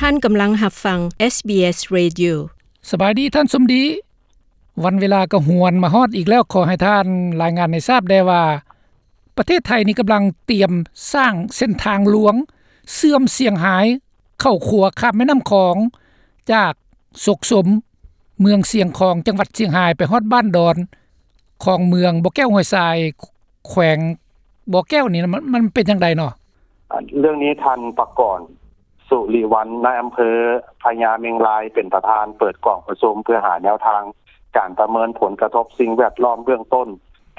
ທ່ານກຳລັງຮັບຟັງ ເອສບີເອສ Radio. ສະບາຍດີທ່ານສົມດີ. ວັນເວລາກໍຫວນມາຮອດອີກແລ້ວ, ຂໍໃຫ້ທ່ານລາຍງານໃຫ້ຊາບແດ່ວ່າ ປະເທດໄທນີ້ກຳລັງຕຽມສ້າງເສັ້ນທາງຫຼວງເຊື່ອມຊຽງຮາຍເຂົ້າຂົວຂ້າມແມ່ນ້ຳຂອງ ຈາກສົກສົມ ເມືອງຊຽງຂອງ ຈັງຫວັດຊຽງຮາຍ ໄປຮອດບ້ານດອນ ຂອງເມືອງບໍ່ແກ້ວຫ້ວຍຊາຍ ແຂວງບໍ່ແກ້ວນີ້ ມັນ ມັນເປັນຈັ່ງໃດເນາະ? ເລື່ອງນີ້ ທ່ານ ປະກອນ ສຸລິວັນ ນາຍອຳເພີພະຍາເມັງລາຍ ເປັນປະທານເປີດກອງປະຊຸມ ເພື່ອຫາແນວທາງການປະເມີນຜົນກະທົບສິ່ງແວດລ້ອມເບື້ອງຕົ້ນ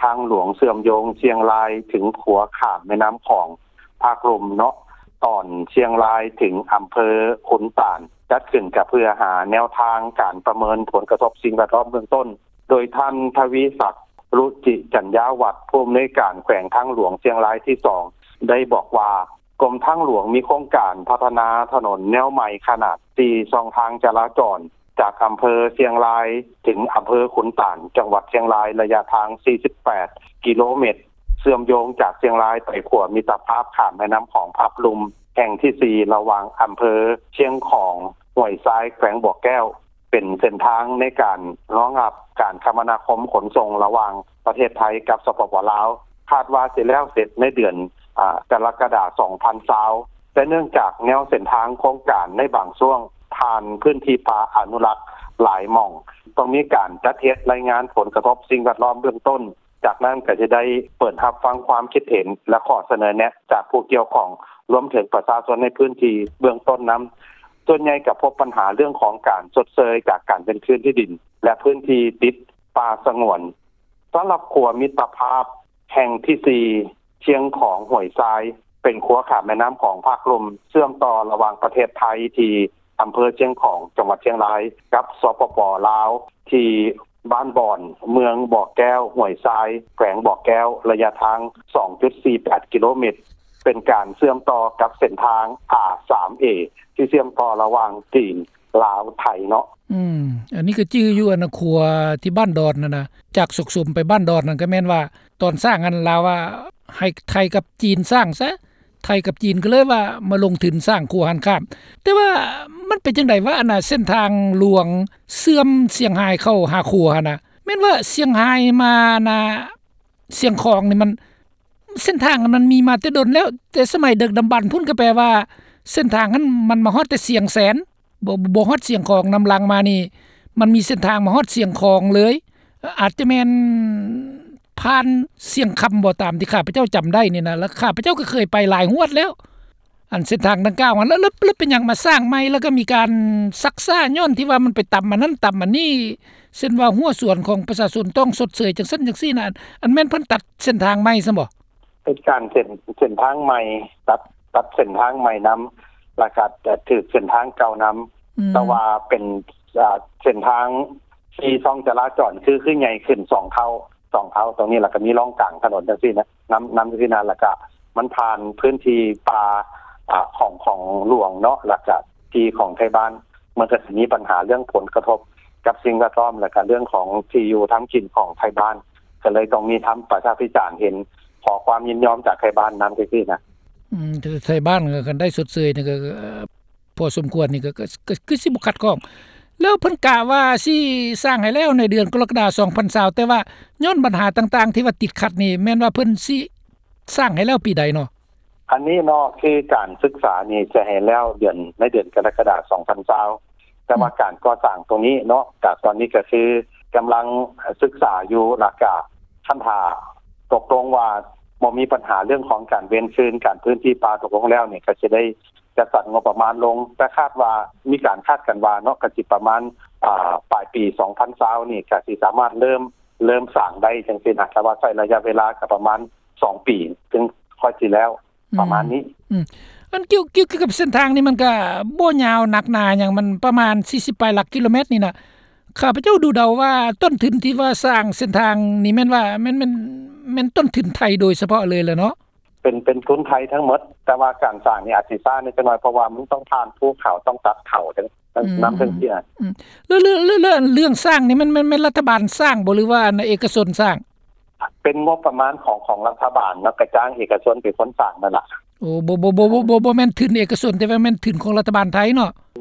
ທາງຫຼວງເຊື່ອມໂຍງຊຽງລາຍເຖິງຂົວຂ້າມແມ່ນ້ຳຂອງພາກລຸ່ມເນາະ ຕອນຊຽງລາຍເຖິງອຳເພີຂຸນຕານ ຈັດຂຶ້ນກະເພື່ອຫາແນວທາງການປະເມີນຜົນກະທົບສິ່ງແວດລ້ອມເບື້ອງຕົ້ນ. ໂດຍທ່ານ ທະວີສັກ ລຸຈິຈັນຍາວັດ ຜູ້ອຳນວຍການແຂວງທາງຫຼວງຊຽງລາຍທີສອງ ໄດ້ບອກວ່າ ກົມທາງຫຼວງມີໂຄງການພັດທະນາຖະໜົນແນວໃໝ່ຂະໜາດສີ່ຊ່ອງທາງຈະລາຈອນ ຈາກອຳເພີຊຽງລາຍເຖິງອຳເພີຂຸນຕານ ຈັງຫວັດຊຽງລາຍ ໄລຍະທາງສີ່ສິບແປດກິໂລແມັດ ເຊື່ອມໂຍງຈາກຊຽງລາຍໄປຂົວມິດຕະພາບຂ້າມແມ່ນ້ຳຂອງພາກລຸ່ມແຫ່ງທີສີ່ ລະຫວ່າງອຳເພີຊຽງຂອງ ຫ້ວຍຊາຍ ແຂວງບໍ່ແກ້ວ ເປັນເສັ້ນທາງໃນການຮອງຮັບການຄະມະນາຄົມຂົນສົ່ງລະຫວ່າງປະເທດໄທກັບ ສປປ ລາວ ຄາດວ່າຊິແລ້ວເສັດໃນເດືອນ ອາ ກໍລະກະດາ ສອງພັນຊາວ ແຕ່ເນື່ອງຈາກແນວເສັ້ນທາງໂຄງການໃນບາງຊ່ວງຜ່ານພື້ນທີ່ປ່າອະນຸລັກຫຼາຍໝ່ອງ ຕ້ອງມີການຈັດເຮັດລາຍງານຜົນກະທົບສິ່ງແວດລ້ອມເບື້ອງຕົ້ນ ຈາກນັ້ນກໍຈະໄດ້ເປີດຮັບຟັງຄວາມຄິດເຫັນ ແລະ ຂໍ້ສະເໜີແນະຈາກຜູ້ກ່ຽວຂ້ອງ ລວມເຖິງປະຊາຊົນໃນພື້ນທີ່ເບື້ອງຕົ້ນນຳ. ສ່ວນໃຫຍ່ກໍພົບບັນຫາເລື່ອງຂອງການຊົດເຊີຍຈາກການເວນຄືນທີ່ດິນ ແລະ ພື້ນທີ່ຕິດປ່າສະຫງວນ. ສຳລັບຂົວມິດຕະພາບແຫ່ງທີສີ່ ຊຽງຂອງ ຫ້ວຍຊາຍ ເປັນຂົວຂ້າມແມ່ນ້ຳຂອງພາກລຸ່ມ ເຊື່ອມຕໍ່ລະຫວ່າງປະເທດໄທທີ່ ອຳເພີຊຽງຂອງ ຈັງຫວັດຊຽງລາຍ ກັບ ສປປ ລາວ ທີ່ບ້ານບອນ ເມືອງບໍ່ແກ້ວ ຫ້ວຍຊາຍ ແຂວງບໍ່ແກ້ວ ໄລຍະທາງສອງຈຸດສີ່ແປດກິໂລແມັດ ເປັນການເຊື່ອມຕໍ່ກັບເສັ້ນທາງ ອາ ສາມເອ ທີ່ເຊື່ອມຕໍ່ລະຫວ່າງຈີນ ລາວ ໄທເນາະ. ອືມ ອັນນີ້ກໍຈື່ຢູ່ ອັນນະ ຂົວທີ່ບ້ານດອນຫັ້ນນະ ຈາກສົກສົມໄປບ້ານດອນນັ້ນ ກໍແມ່ນວ່າຕອນສ້າງຫັ້ນ ລາວວ່າໃຫ້ໄທກັບຈີນສ້າງຊະ ໄທກັບຈີນກໍເລີຍວ່າມາລົງທຶນສ້າງຂົວຫັ້ນຂ້າມ. ແຕ່ວ່າມັນເປັນຈັ່ງໃດວະ ອັນນ່າ ເສັ້ນທາງຫຼວງເຊື່ອມຊຽງຮາຍເຂົ້າຫາຂົວຫັ້ນນະ ແມ່ນວ່າຊຽງຮາຍມາ ອັນນ່າ ຊຽງຂອງນີ້ ມັນ ເສັ້ນທາງມັນມີມາແຕ່ດົນແລ້ວ ແຕ່ສະໄໝດຶກດຳບັນພຸ້ນ ກໍແປວ່າເສັ້ນທາງຫັ້ນມັນມາຮອດແຕ່ຊຽງແສນ ບໍ່ ບໍ່ຮອດຊຽງຂອງ. ນຳຫຼັງມານີ້ ມັນມີເສັ້ນທາງມາຮອດຊຽງຂອງເລີຍ ອາດຈະແມ່ນຜ່ານຊຽງຄຳບໍ່ ຕາມທີ່ຂ້າພະເຈົ້າຈຳໄດ້ນີ້ນະ ແລ້ວຂ້າພະເຈົ້າກໍເຄີຍໄປຫຼາຍຮອດແລ້ວ ອັນເສັ້ນທາງດັ່ງກ່າວຫັ້ນ. ແລ້ວ ແລ້ວ ແລ້ວເປັນຫຍັງມາສ້າງໃໝ່ ແລ້ວກໍມີການຊັກຊ້າ ຍ້ອນທີ່ວ່າມັນໄປຕຳອັນນັ້ນຕຳອັນນີ້ ເຊັ່ນວ່າຮົ້ວສວນຂອງປະຊາຊົນຕ້ອງຊົດເຊີຍຈັ່ງຊັ້ນຈັ່ງຊີ້ນະ ອັນ ອັນແມ່ນເພິ່ນຕັດເສັ້ນທາງໃໝ່ຊັ້ນບໍ? ເປັນການເສັ້ນ ເສັ້ນທາງໃໝ່ ຕັດ ຕັດເສັ້ນທາງໃໝ່ນຳ ແລ້ວກໍຖືກເສັ້ນທາງເກົ່ານຳ ອືມ ແຕ່ວ່າເປັນ ເສັ້ນທາງສີ່ຊ່ອງຈະລາຈອນ ຄື ຄືໃຫຍ່ຂຶ້ນສອງເທົ່າ ສອງເທົ່າ ຕົງນີ້ ແລ້ວກໍມີຮ່ອງກາງຖະໜົນຈັ່ງຊີ້ນະ ນຳ ນຳຈັ່ງຊີ້ນະ ແລ້ວກໍມັນຜ່ານພື້ນທີ່ປ່າ ອາ ຂອງ ຂອງຫຼວງເນາະ ແລ້ວກໍທີ່ຂອງໄທບ້ານ ມັນກໍຊິມີບັນຫາເລື່ອງຜົນກະທົບກັບສິ່ງແວດລ້ອມ ແລ້ວກໍເລື່ອງຂອງທີ່ຢູ່ທຳກິນຂອງໄທບ້ານ ກໍເລີຍຕ້ອງມີທຳປະຊາພິຈານ ເຫັນຂໍຄວາມຍິນຍອມຈາກໄທບ້ານນຳຈັ່ງຊີ້ນະ. ອືມ ແຕ່ໄທບ້ານກໍຄັນໄດ້ຊົດເຊີຍນີ້ກໍ ພໍສົມຄວນນີ້ ກໍ ກໍ ກໍຄືຊິບໍ່ຂັດຂ້ອງ. ແລ້ວເພິ່ນກະວ່າຊິສ້າງໃຫ້ແລ້ວໃນເດືອນກໍລະກະດາ ສອງພັນຊາວ ແຕ່ວ່າຍ້ອນບັນຫາຕ່າງໆທີ່ວ່າຕິດຂັດນີ້ ແມ່ນວ່າເພິ່ນຊິສ້າງໃຫ້ແລ້ວປີໃດເນາະ? ອັນນີ້ເນາະ ຄືການສຶກສານີ້ຈະໃຫ້ແລ້ວເດືອນ ໃນເດືອນກໍລະກະດາ ສອງພັນຊາວ ແຕ່ວ່າ ອືມ ການກໍ່ສ້າງຕົງນີ້ເນາະ ກະຕອນນີ້ກໍຄືກຳລັງສຶກສາຢູ່ ແລ້ວກະຄັນຖ້າຕົກລົງວ່າບໍ່ມີບັນຫາເລື່ອງຂອງການເວນຄືນ ການພື້ນທີ່ປ່າຕົກລົງແລ້ວນີ້ ກໍຊິໄດ້ ຈັດສັນງົບປະມານລົງ ແຕ່ຄາດວ່າ ມີການຄາດກັນວ່າເນາະ ກໍຊິປະມານ ອາ ປາຍປີສອງພັນຊາວນີ້ ກໍຊິສາມາດເລີ່ມ ເລີ່ມສ້າງໄດ້ຈັ່ງຊີ້ນະ ແຕ່ວ່າໃຊ້ໄລຍະເວລາກໍປະມານສອງປີ ເຖິງຄ່ອຍຊິແລ້ວ ອືມ ປະມານນີ້. ອືມ ອັນກ່ຽວ ກ່ຽວ ກ່ຽວກັບເສັ້ນທາງນີ້ ມັນກໍບໍ່ຍາວໜັກໜາຫຍັງ ມັນປະມານສີ່ສິບປາຍຫຼັກກິໂລແມັດນີ້ນະ ຂ້າພະເຈົ້າດູເດົາວ່າຕົ້ນທຶນທີ່ວ່າສ້າງເສັ້ນທາງນີ້ ແມ່ນວ່າ ແມ່ນ ແມ່ນ ແມ່ນຕົ້ນທຶນໄທໂດຍສະເພາະເລີຍແຫຼະເນາະ. ເປັນ ເປັນທຶນໄທທັງໝົດ ແຕ່ວ່າການສ້າງນີ້ອາດຊິຊ້າແດ່ຈັກໜ້ອຍ ເພາະວ່າມັນຕ້ອງຜ່ານພູເຂົາ ຕ້ອງຕັດເຂົາ ອືມ ນຳ ຈັ່ງຊີ້ນະ. ອືມ ແລ້ວ ແລ້ວ ແລ້ວ ແລ້ວເລື່ອງສ້າງນີ້ ແມ່ນ ແມ່ນ ແມ່ນລັດຖະບານສ້າງບໍ່ ຫຼືວ່າເອກະຊົນສ້າງ? ເປັນງົບປະມານຂອງ ຂອງລັດຖະບານເນາະ ກະຈ້າງເອກະຊົນເປັນຄົນສ້າງນັ້ນລະ. ໂອ້ ບໍ່ ບໍ່ ບໍ່ ບໍ່ ບໍ່ ບໍ່ແມ່ນທຶນເອກະຊົນ ແຕ່ວ່າແມ່ນທຶນຂອງລັດຖະບານໄທເນາະ.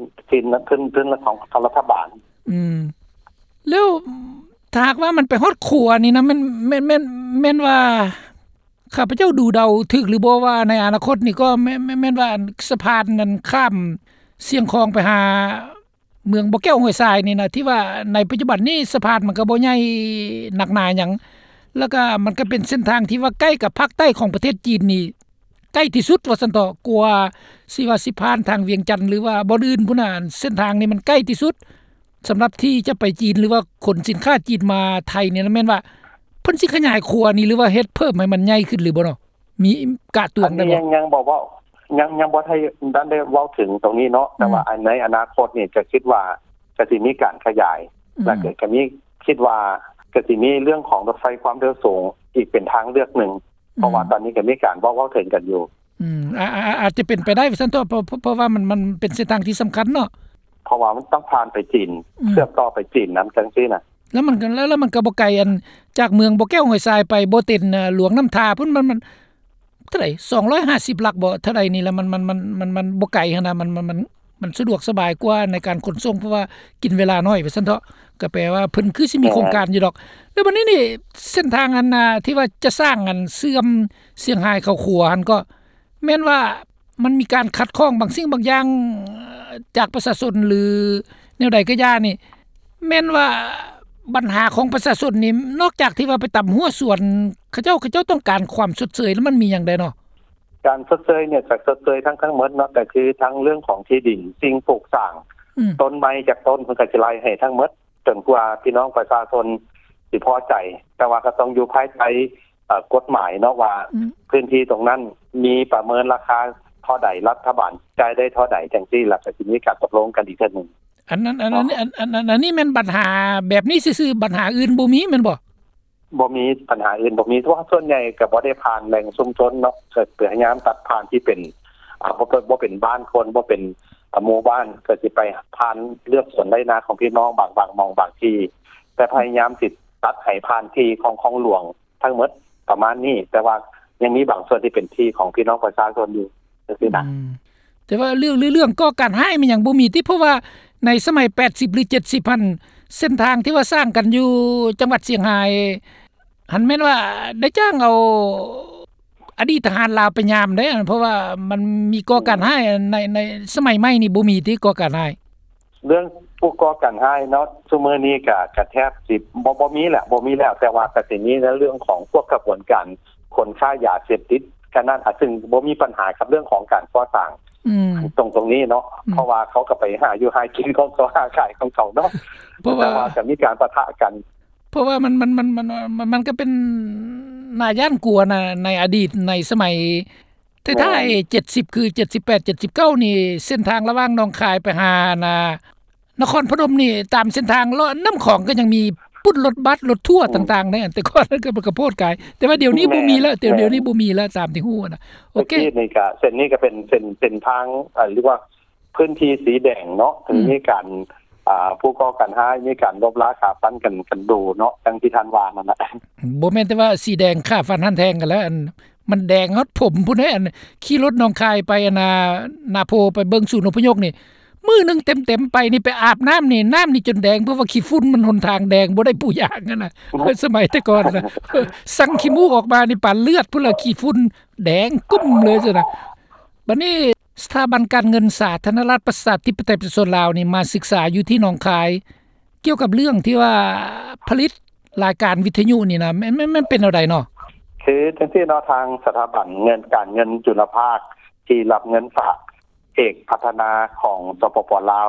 ທຶນ ທຶນ ທຶນຂອງ ຂອງລັດຖະບານ. ອືມ ແລ້ວຖ້າຫາກວ່າມັນໄປຮອດຂົວນີ້ນະ ແມ່ນ ແມ່ນ ແມ່ນ ແມ່ນວ່າ ຂ້າພະເຈົ້າດູເດົາຖືກຫຼືບໍ່ວ່າ ໃນອະນາຄົດນີ້ກໍແມ່ນ ແມ່ນ ແມ່ນວ່າສະພານນັ້ນຂ້າມຊຽງຂອງໄປຫາເມືອງບໍ່ແກ້ວຫ້ວຍຊາຍນີ້ນະ ທີ່ວ່າໃນປັດຈຸບັນນີ້ສະພານມັນກໍບໍ່ໃຫຍ່ໜັກໜາຫຍັງ ແລ້ວກໍມັນກໍເປັນເສັ້ນທາງທີ່ວ່າໃກ້ກັບພາກໃຕ້ຂອງປະເທດຈີນນີ້ ໃກ້ທີ່ສຸດວ່າຊັ້ນເຖາະ ກວ່າຊິວ່າຊິຜ່ານທາງວຽງຈັນ ຫຼືວ່າບ່ອນອື່ນພຸ້ນນະ ເສັ້ນທາງນີ້ມັນໃກ້ທີ່ສຸດ ສຳລັບທີ່ຈະໄປຈີນ ຫຼືວ່າຂົນສິນຄ້າຈີນມາໄທນີ້ນະ ແມ່ນວ່າເພິ່ນຊິຂະຫຍາຍຂົວນີ້ ຫຼືວ່າເຮັດເພີ່ມໃຫ້ມັນໃຫຍ່ຂຶ້ນຫຼືບໍ່ເນາະ? ມີກະຕວງໄດ້ບໍ່? ອັນນີ້ຍັງ ຍັງບໍ່ເວົ້າ ຍັງ ຍັງບໍ່ໄດ້ ທັນໄດ້ເວົ້າເຖິງຕົງນີ້ເນາະ ອືມ ແຕ່ວ່າອັນໃນອະນາຄົດນີ້ກະຄິດວ່າກະຊິມີການຂະຫຍາຍ ອືມ ແລ້ວກະ ກະມີ ຄິດວ່າກະຊິມີເລື່ອງຂອງລົດໄຟຄວາມເລັວສູງອີກເປັນທາງເລືອກໜຶ່ງ ອືມ ເພາະວ່າຕອນນີ້ກະມີການເວົ້າ ເວົ້າເຖິງກັນຢູ່. ອືມ ອາ ອາ ອາດຈະເປັນໄປໄດ້ວ່າຊັ້ນເຖາະ ເພາະ ເພາະ ເພາະວ່າມັນ ມັນເປັນເສັ້ນທາງທີ່ສຳຄັນເນາະ ເພາະວ່າມັນຕ້ອງຜ່ານໄປຈີນ ອືມ ເຊື່ອມຕໍ່ໄປຈີນນຳ ຈັ່ງຊີ້ນະ. ແລ້ວມັນກໍ ແລ້ວ ແລ້ວມັນກໍບໍ່ໄກ ອັນ ຈາກເມືອງບໍ່ແກ້ວຫ້ວຍຊາຍໄປບໍ່ເຕັນ ອາ ຫຼວງນ້ຳທາພຸ້ນ ມັນ ມັນເທົ່າໃດ ສອງຮ້ອຍຫ້າສິບຫຼັກບໍ່ ເທົ່າໃດນີ້ລະ ມັນ ມັນ ມັນ ມັນ ມັນບໍ່ໄກຫັ້ນນະ ມັນ ມັນ ມັນ ມັນສະດວກສະບາຍກວ່າໃນການຂົນສົ່ງ ເພາະວ່າກິນເວລາໜ້ອຍວ່າຊັ້ນເຖາະ ກໍແປວ່າເພິ່ນຄືຊິມີໂຄງການຢູ່ດອກ. ແລ້ວບັດນີ້ນີ້ ເສັ້ນທາງອັນ ອາ ທີ່ວ່າຈະສ້າງ ອັນ ເຊື່ອມຊຽງຮາຍເຂົ້າຂົວຫັ້ນ ກໍແມ່ນວ່າມັນມີການຂັດຂ້ອງບາງສິ່ງບາງຢ່າງ ເອີ ຈາກປະຊາຊົນ ຫຼື ແນວໃດກໍຢ່ານີ້ ແມ່ນວ່າບັນຫາຂອງປະຊາຊົນນີ້ ນອກຈາກທີ່ວ່າໄປຕຳຮົ້ວສວນເຂົາເຈົ້າ ເຂົາເຈົ້າຕ້ອງການຄວາມຊົດເຊີຍ ແລ້ວມັນມີຫຍັງແດ່ເນາະ? ການຊົດເຊີຍນີ້ຈະຊົດເຊີຍທັງ ທັງໝົດເນາະ ກໍຄືທັງເລື່ອງຂອງທີ່ດິນ ສິ່ງປູກສ້າງ ອືມ ຕົ້ນໄມ້ຈັກຕົ້ນ ເພິ່ນກໍຊິໄລ່ໃຫ້ທັງໝົດ ຈົນກວ່າພີ່ນ້ອງປະຊາຊົນຊິພໍໃຈ ແຕ່ວ່າກໍຕ້ອງຢູ່ພາຍໃຕ້ ເອີ ກົດໝາຍເນາະວ່າ ອືມ ພື້ນທີ່ຕົງນັ້ນມີປະເມີນລາຄາເທົ່າໃດ ລັດຖະບານຈ່າຍໄດ້ເທົ່າໃດ ຈັ່ງຊີ້ ແລ້ວກໍຊິມີການຕົກລົງກັນອີກເທື່ອໜຶ່ງ. ອັນນັ້ນ ອັນ ອັນ ອັນ ອັນ ອັນນີ້ແມ່ນບັນຫາແບບນີ້ຊື່ໆ ບັນຫາອື່ນບໍ່ມີແມ່ນບໍ່? ບໍ່ມີ ບັນຫາອື່ນບໍ່ມີ ເພາະວ່າສ່ວນໃຫຍ່ກໍບໍ່ໄດ້ຜ່ານແຫຼ່ງຊຸມຊົນເນາະ ກໍພະຍາຍາມຕັດຜ່ານທີ່ເປັນ ອາ ບໍ່ ບໍ່ເປັນບ້ານຄົນ ບໍ່ເປັນ ອາ ໝູ່ບ້ານ ກໍຊິໄປຜ່ານເລືອກສວນໄຮ່ນາຂອງພີ່ນ້ອງບາງ ບາງໝ່ອງບາງທີ່ ແຕ່ພະຍາຍາມຊິຕັດໃຫ້ຜ່ານທີ່ຂອງ ຂອງຫຼວງທັງໝົດປະມານນີ້ ແຕ່ວ່າຍັງມີບາງສ່ວນທີ່ເປັນທີ່ຂອງພີ່ນ້ອງປະຊາຊົນຢູ່ ຈັ່ງຊີ້ນະ. ອືມ ແຕ່ວ່າເລື່ອງ ເລື່ອງກໍ່ການຮ້າຍແມ່ນຫຍັງບໍ່ມີຕິ ເພາະວ່າໃນສະໄໝແປດສິບ ຫຼື ເຈັດສິບຫັ້ນ ເສັ້ນທາງທີ່ວ່າສ້າງກັນຢູ່ຈັງຫວັດຊຽງຮາຍຫັ້ນ ແມ່ນວ່າໄດ້ຈ້າງເອົາອະດີດທະຫານລາວໄປຍາມເດ້ ເພາະວ່າມັນມີກໍ່ການຮ້າຍ ໃນ ໃນສະໄໝໃໝ່ນີ້ບໍ່ມີຕິ ກໍ່ການຮ້າຍ? ເລື່ອງຜູ້ກໍ່ການຮ້າຍເນາະ ຊຸມື້ນີ້ກະ ກະແທບຊິບໍ່ ບໍ່ມີແຫຼະ ບໍ່ມີແລ້ວ ແຕ່ວ່າກະຊິມີໃນເລື່ອງຂອງພວກຂະບວນການຂົນຄ້າຢາເສບຕິດ ກະນັ້ນ ອາ ຊຶ່ງບໍ່ມີບັນຫາກັບເລື່ອງຂອງການກໍ່ສ້າງ ອືມ ຕົງ ຕົງນີ້ເນາະ ອືມ ເພາະວ່າເຂົາກໍໄປຫາຢູ່ຫາກິນຂອງເຂົາ ຫາຂາຍຂອງເຂົາເນາະ ເພາະວ່າ ແຕ່ວ່າກໍມີການປະທະກັນ ເພາະວ່າມັນ ມັນ ມັນ ມັນ ມັນ ມັນກໍເປັນໜ້າຢ້ານກົວນະ ໃນອະດີດ ໃນສະໄໝ ແຕ່ທ້າຍ ແມ່ນ ເຈັດສິບ ຄື ເຈັດສິບແປດ ເຈັດສິບເກົ້ານີ້ ເສັ້ນທາງລະຫວ່າງໜອງຄາຍໄປຫາ ອັນນ່າ ນະຄອນພະນົມນີ້ ຕາມເສັ້ນທາງເລາະນ້ຳຂອງກໍຍັງມີປຸ້ນລົດບັສ ລົດທົວ ອືມ ຕ່າງໆ ໃນອັນແຕ່ກ່ອນນັ້ນກໍ ມັນກໍໂພດກາຍ ແຕ່ວ່າດຽວນີ້ ແມ່ນ ບໍ່ມີແລ້ວ ແຕ່ ແມ່ນ ດຽວນີ້ບໍ່ມີແລ້ວ ຕາມທີ່ຮູ້ນະ. ໂອເຄ ແຕ່ກີ້ນີ້ກໍ ເສັ້ນນີ້ກໍເປັນເສັ້ນ ເສັ້ນທາງ ເອີ ຫຼືວ່າພື້ນທີ່ສີແດງເນາະ ອືມ ມີການ ອ່າ ຜູ້ກໍ່ການຮ້າຍ ມີການລົບລາຂ້າຟັນກັນ ກັນດູເນາະ ດັ່ງທີ່ທ່ານວ່ານັ້ນນະ. ບໍ່ແມ່ນແຕ່ວ່າສີແດງຂ້າຟັນຫັນແທງກັນແລ້ວ ອັນ ມັນແດງຮອດຜົມພຸ້ນເດ້ ອັນຂີ່ລົດໜອງຄາຍໄປ ອັນນ່າ ນາໂພ ໄປເບິ່ງສູນອົບພະຍົບນີ້ ມື້ໜຶ່ງເຕັມໆໄປນີ້ ໄປອາບນ້ຳນີ້ ນ້ຳນີ້ຈົນແດງ ເພາະວ່າຂີ້ຝຸ່ນມັນຫົນທາງແດງ ບໍ່ໄດ້ປູຢາງຫັ້ນນະ. ໂອ້ ສະໄໝແຕ່ກ່ອນນະ ສັງຂີ້ມູກອອກມານີ້ປານເລືອດພຸ້ນລະ ຂີ້ຝຸ່ນແດງກຶ້ມເລີຍຊັ້ນນະ. ບັດນີ້ ສະຖາບັນການເງິນສາທາລະນະລັດ ປະຊາທິປະໄຕ ປະຊາຊົນລາວນີ້ ມາສຶກສາຢູ່ທີ່ໜອງຄາຍ ກ່ຽວກັບເລື່ອງທີ່ວ່າຜະລິດລາຍການວິທະຍຸນີ້ນະ ແມ່ນ ແມ່ນ ແມ່ນເປັນແນວໃດເນາະ? ຄືຈັ່ງຊີ້ເນາະ ທາງສະຖາບັນເງິນ ການເງິນຈຸລະພາກ ທີ່ຮັບເງິນຝາກເອກພັດທະນາຂອງ ສປປ ລາວ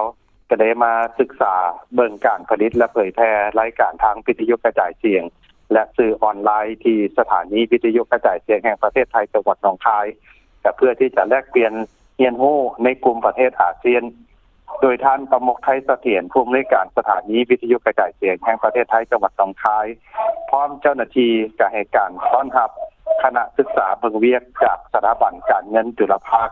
ກໍໄດ້ມາສຶກສາເບິ່ງການຜະລິດ ແລະ ເຜີຍແຜ່ລາຍການທາງວິທະຍຸກະຈາຍສຽງ ແລະ ສື່ອອນລາຍ ທີ່ສະຖານີວິທະຍຸກະຈາຍສຽງແຫ່ງປະເທດໄທ ຈັງຫວັດໜອງຄາຍ ກໍເພື່ອທີ່ຈະແລກປ່ຽນ ຮຽນຮູ້ໃນກຸ່ມປະເທດອາຊຽນ ໂດຍທ່ານ ປະມຸກ ໄທສະຖຽນ ຜູ້ອຳນວຍການສະຖານີວິທະຍຸກະຈາຍສຽງແຫ່ງປະເທດໄທ ຈັງຫວັດໜອງຄາຍ ພ້ອມເຈົ້າໜ້າທີ່ກໍໃຫ້ການຕ້ອນຮັບຄະນະສຶກສາເບິ່ງວຽກຈາກສະຖາບັນການເງິນຈຸລະພາກ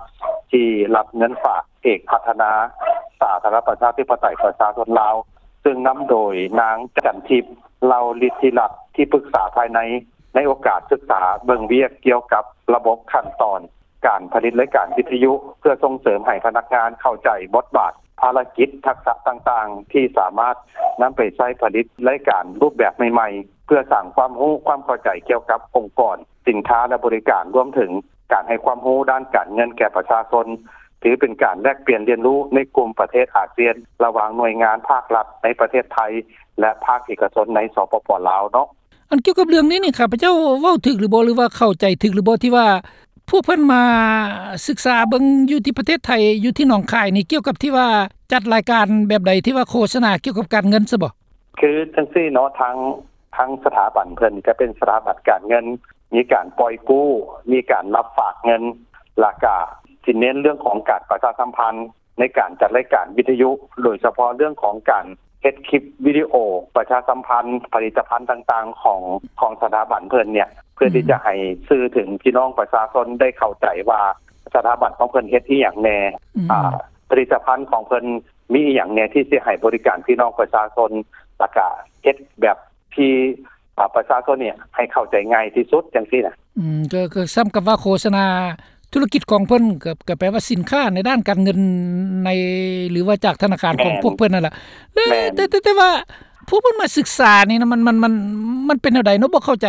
ທີ່ຮັບເງິນຝາກເອກພັດທະນາສາທາລະນະລັດ ປະຊາທິປະໄຕ ປະຊາຊົນລາວ ຊຶ່ງນຳໂດຍນາງ ຈັນທິບ ເຫຼົ່າລິດທິລັດ ທີ່ປຶກສາພາຍໃນ ໃນໂອກາດສຶກສາເບິ່ງວຽກກ່ຽວກັບລະບົບຂັ້ນຕອນ ການຜະລິດລາຍການວິທະຍຸ ເພື່ອສົ່ງເສີມໃຫ້ພະນັກງານເຂົ້າໃຈບົດບາດ, ພາລະກິດ, ທັກສະຕ່າງໆ ທີ່ສາມາດນຳໄປໃຊ້ຜະລິດລາຍການຮູບແບບໃໝ່ໆ ເພື່ອສ້າງຄວາມຮູ້ຄວາມເຂົ້າໃຈກ່ຽວກັບອົງກອນ, ສິນຄ້າ ແລະ ບໍລິການ, ລວມເຖິງການໃຫ້ຄວາມຮູ້ດ້ານການເງິນແກ່ປະຊາຊົນ, ຖືເປັນການແລກປ່ຽນຮຽນຮູ້ໃນກຸ່ມປະເທດອາຊຽນ ລະຫວ່າງໜ່ວຍງານພາກລັດໃນປະເທດໄທ ແລະ ພາກເອກະຊົນໃນ ສປປ ລາວ ເນາະ. ອັນກ່ຽວກັບເລື່ອງນີ້ນີ້ ຂ້າພະເຈົ້າເວົ້າຖືກຫຼືບໍ່ ຫຼືວ່າເຂົ້າໃຈຖືກຫຼືບໍ່ ທີ່ວ່າພວກເພິ່ນມາສຶກສາເບິ່ງຢູ່ທີ່ປະເທດໄທ ຢູ່ທີ່ໜອງຄາຍນີ້ ກ່ຽວກັບທີ່ວ່າຈັດລາຍການແບບໃດ ທີ່ວ່າໂຄສະນາກ່ຽວກັບການເງິນຊະບໍ? ຄືຈັ່ງຊີ້ເນາະ ທາງ ທາງສະຖາບັນເພິ່ນຈະເປັນສະຖາບັນການເງິນ, ມີການປ່ອຍກູ້, ມີການຮັບຝາກເງິນ, ແລ້ວກະຊິເນັ້ນເລື່ອງຂອງການປະຊາສຳພັນ ໃນການຈັດລາຍການວິທະຍຸ ໂດຍສະເພາະເລື່ອງຂອງການເຮັດຄລິບວິດີໂອປະຊາສຳພັນຜະລິດຕະພັນຕ່າງໆ ຂອງ ຂອງສະຖາບັນເພິ່ນເນ່ຍ ເພື່ອທີ່ຈະໃຫ້ສື່ເຖິງພີ່ນ້ອງປະຊາຊົນໄດ້ເຂົ້າໃຈວ່າ ສະຖາບັນຂອງເພິ່ນເຮັດອີ່ຫຍັງແນ່, ອືມ ອາ ຜະລິດຕະພັນຂອງເພິ່ນມີອີ່ຫຍັງແນ່ ທີ່ຊິໃຫ້ບໍລິການພີ່ນ້ອງປະຊາຊົນ ແລ້ວກະເຮັດແບບທີ່ ອາ ປະຊາຊົນນີ້ໃຫ້ເຂົ້າໃຈງ່າຍທີ່ສຸດຈັ່ງຊີ້ນະ. ອືມ ກໍ ກໍສ່ຳກັບວ່າໂຄສະນາທຸລະກິດຂອງເພິ່ນ ກໍ ກໍແປວ່າສິນຄ້າໃນດ້ານການເງິນໃນ ຫຼືວ່າຈາກທະນາຄານຂອງ ແມ່ນ ພວກເພິ່ນນັ້ນລະ. ແລ້ວ ແມ່ນ ແຕ່ ແຕ່ ແຕ່ວ່າພວກເພິ່ນມາສຶກສານີ້ນະ ມັນ ມັນ ມັນ ມັນເປັນແນວໃດເນາະ? ບໍ່ເຂົ້າໃຈ